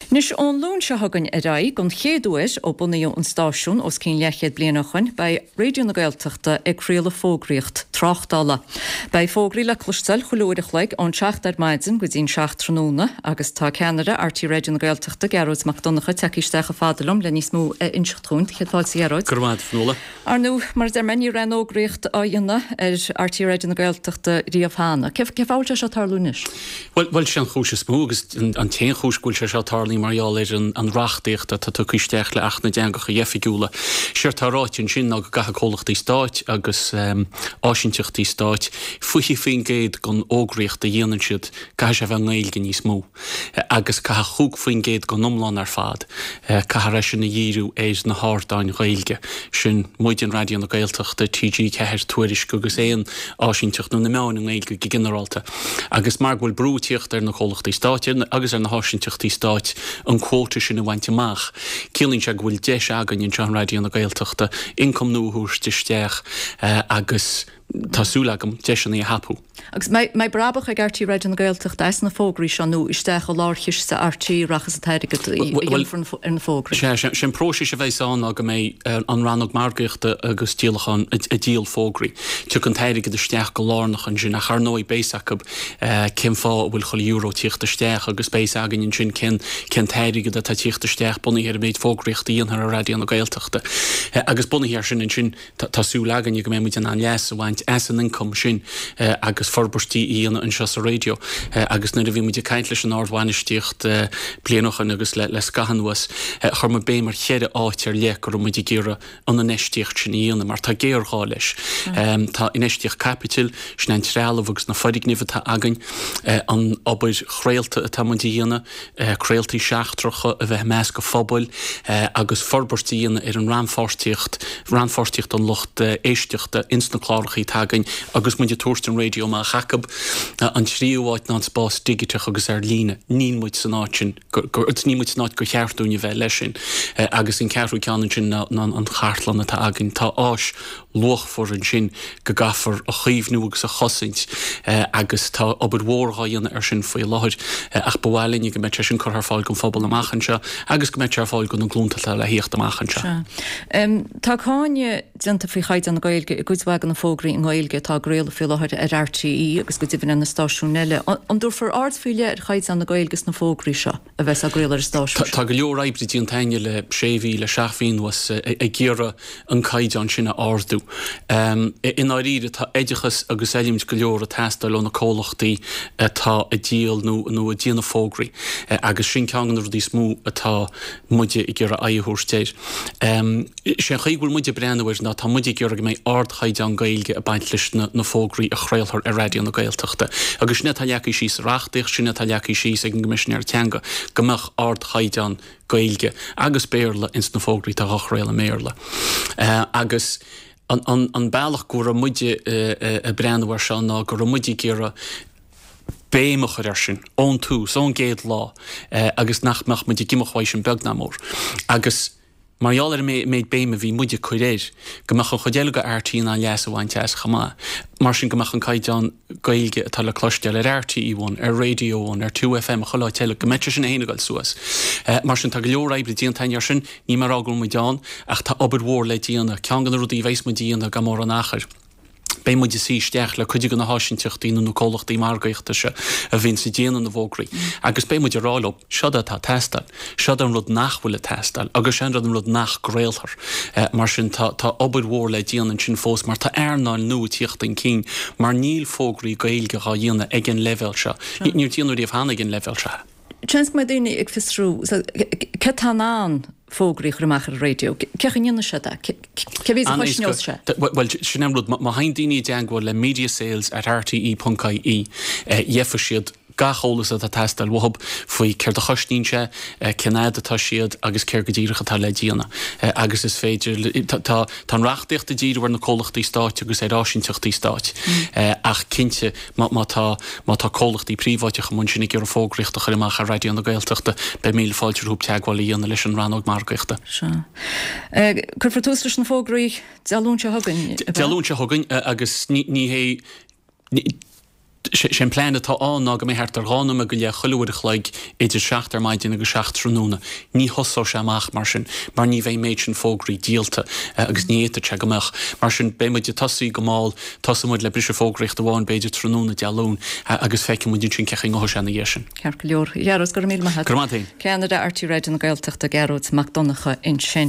Anois, ón Luan seo chugainn ar aghaidh, don chéad uair ó bunaíodh an stáisiún os cionn leathchéad bliain ó shoin, beidh Raidió na Gaeltachta ag craoladh fógraíocht tráchtála. Beidh fógraí le cloisteáil chuile uair a chloig ón 7 ar maidin go dtí'n 7 tráthnóna agus tá ceannaire RTÉ Raidió na Gaeltachta, Gearóid Mac Donncha, tagtha isteach chomh fada liom le níos mó a inseacht dhúinn. Céad fáilte, a Ghearóid. Go raibh maith agat, a Fionnuala. Ar ndóigh, mar a deir mé, ní raibh aon fhógraíocht á dhéanamh ar RTÉ Raidió na Gaeltachta riamh cheana. Cén fáth a bhfuil sé seo ag tarlú anois? Bhuel, bhuel, sé an chúis is mó agus an t-aon chúis go bhfuil sé seo ag tarlú mar gheall ar an reachtaíocht atá tugtha isteach le Acht na dTeangacha Oifigiúla. Séard tá ráite ansin ná go gcaithfidh comhlachtaí stáit agus áisinteachtaí stáit 20% den fhógraíocht a dhéanann siad, caithfidh sé a bheith i nGaeilge níos mó. agus caithfidh 5% den iomlán ar fad, caithfear é sin a dhíriú ar na hardáin Ghaeilge. Sin muid, Raidió na Gaeltachta, TG4, Tuairisc agus aon áisinteacht nó na meáin i nGaeilge go ginearálta. Agus mar go bhfuil brú ag tíocht ar na comhlachtaí stáit agus ar na háisinteachtaí stáit an quota sin a bhaint amach, ciallaíonn sé go bhfuil deis againn anseo in Raidió na Gaeltachta ioncam nua a thabhairt isteach agus tá súil agam deiseanna a thapú. Agus mbeidh brabach ag RTÉ Raidió na Gaeltachta as na fógraí seo nó isteach i lárchiste RTÉ a rachas an t-airgead a dhéanfar ar na fógraí? Sea, sé an próiseas a bheas ann ná go mbeidh an rannóg margaíochta agus díolacháin ag díol fógraí. Tiocfaidh an t-airgead isteach go lárnach ansin ach ar ndóigh beidh fhios acu cén fáth a bhfuil chuile euro ag tíocht isteach agus beidh fhios againn ansin cén cén t-airgead atá ag tíocht isteach bunaithe ar an méid fógraíochta a dhéanfar ar Raidió na Gaeltachta. Agus bunaithe ar sin ansin Tá súil againne go mbeidh muid in ann leas a bhaint as an ioncam sin agus forbairtí a dhéanamh anseo sa raidió. Agus nuair a bhí muid ag caint leis an ardbhainistíocht bliain ó shoin agus le scaitheamh anuas, chuir muid béim ar cheithre áit ar leith go raibh muid ag iarraidh an infheistíocht sin a dhéanamh mar tá géarghá leis. Tá infheistíocht caipitil, sin an trealamh agus na foirgnimh atá againn, an obair chraolta atá muid a dhéanamh, craoltaí seachtracha a bheith i measc an phobail agus forbairt a dhéanamh ar an rannpháirtíocht, rannpháirtíocht an lucht éisteachta ins na clárachaí atá againn agus muid ag tabhairt an raidió amach acu. An tríú áit ná an spás digiteach agus ar líne. Níl muid san áit sin, níl muid san áit gur cheart dúinn a bheith leis sin. Agus an ceathrú ceann ansin ná an chartlann atá againn. Tá áis luachmhar ansin go gcaithfear a chaomhnú agus a chosaint agus tá obair mhór dhá dhéanamh ar sin faoi láthair ach ba mhaith linne go mbeadh sé sin curtha ar fáil don phobal amach anseo agus go mbeadh sé ar fáil do na glúnta atá le thíocht amach anseo. Sea. Tá cáineadh déanta faoi chaighdeán na Gaeilge i gcuid mhaith de na fógraí i nGaeilge atá á gcraoladh faoi láthair ar RTÉ agus go deimhin ar na stáisiúin eile. An dtabharfar aird faoi leith ar chaighdeán na Gaeilge sna fógraí seo? a bheas á gcraoladh ar an stáisiún seo. Tá go leor oibre déanta againne le sé mhí, le seacht mhí anuas ag iarraidh an caighdeán sin a ardú. I ndáiríre tá oideachas agus oiliúint go leor ag teastáil ó na comhlachtaí atá ag díol nó nó ag déanamh fógraí agus sin ceann de na rudaí is mó atá muide ag iarraidh aghaidh a thabhairt air. Sé an chaoi go bhfuil muid ag breathnú air ná tá muid ag iarraidh go mbeidh ardchaighdeán Gaeilge ag baint leis na fógraí a chraolfar ar Raidió na Gaeltachta. Agus sin é atá leagtha síos sa reachtaíocht, sin é atá leagtha síos ag an gCoimisinéir Teanga, go mbeadh ardchaighdeán Gaeilge agus Béarla ins na fógraí atá á chraoladh i mBéarla. Agus an bealach go raibh muide ag breathnú air seo ná go raibh muid ag iarraidh béim a chur air sin ón tús, ón gcéad lá, agus nach mbeadh muid ag imeacht uaidh sin beag ná mór. Agus. Mar gheall ar an méid béime a bhí muid ag cur air, go mbeadh an chuid eile de RTÉ in ann leas a bhaint as chomh maith. Mar sin go mbeadh an caighdeán Gaeilge atá le cloisteáil ar RTÉ One, ar Radio One, ar 2FM, chuile áit eile, go mbeadh sé sin féin ag dul suas. Mar sin tá go leor oibre déanta againn air sin, níl mé ag rá go bhfuil muid ann, ach tá obair mhór le déanamh. Ceann de na rudaí a bheas muid a dhéanamh gan mórán achair. Beidh muid ag suí isteach le cuid de na háisinteachtaí nó na comhlachtaí margaíochta seo a bhíonns ag déanamh na bhfógraí agus beidh muid ag rá leo, seod é atá ag teastáil, seod é an rud nach bhfuil ag teastáil agus seo an rud nach gcraolfar. Mar sin tá tá obair mhór le déanamh ansin fós mar tá earnáil nua ag tíocht chun cinn mar níl fógraí Gaeilge dhá dhéanamh ag an leibhéal seo. Níor déanadh riamh cheana ag an leibhéal seo. Seans go mbeidh daoine ag fiosrú cé atá in ann fógraí a chur amach ar an raidió. Cén chaoi a ndéanann siad é? Cé mhéad a chosnós sé? Bhuel, sin an rud. Má théann daoine i dteagmháil le mediasales at rte ponc ie, gheobhaidh siad gach eolas atá ag teastáil uathu faoi céard a chosnaíonn sé, cén fhad atá siad agus céard go díreach atá le déanamh. Agus is féidir, tá an reachtaíocht ag díriú ar na comhlachtaí stáit agus ar áisinteachtaí stáit ach cinnte, Má tá, má tá comhlachtaí príobháideacha amuigh ansin ag iarraidh fógraíocht a chur amach ar Raidió na Gaeltachta, beidh míle fáilte rompu teagmháil a dhéanamh leis an rannóg margaíochta. Sea. Cuirfear tús leis na fógraí Dé Luain seo chugainn, ab ea? Dé Luain seo chugainn agus ní, ní hé, ní, Sé an plean atá ann ná go mbeidh thart ar 2 nóiméad go leith chuile uair a chloig idir 7 ar maidin agus 7 tráthnóna. Ní thosóidh sé amach mar sin mar ní bheidh an méid sin fógraí díolta agus ní fhéadfadh sé go mbeadh. Mar sin beidh muid ag tosaí go mall, tosóidh muid le briseadh fógraíochta amháin b'fhéidir tráthnóna Dé Luain agus feicfidh muid ansin cé chaoi a ngabhfaidh sé ina dhiaidh sin. Ceart go leor. A Ghearóid, go raibh míle maith agat. Go raibh maith agat féin. Ceannaire RTÉ Raidió na Gaeltachta, Gearóid Mac Donncha ansin.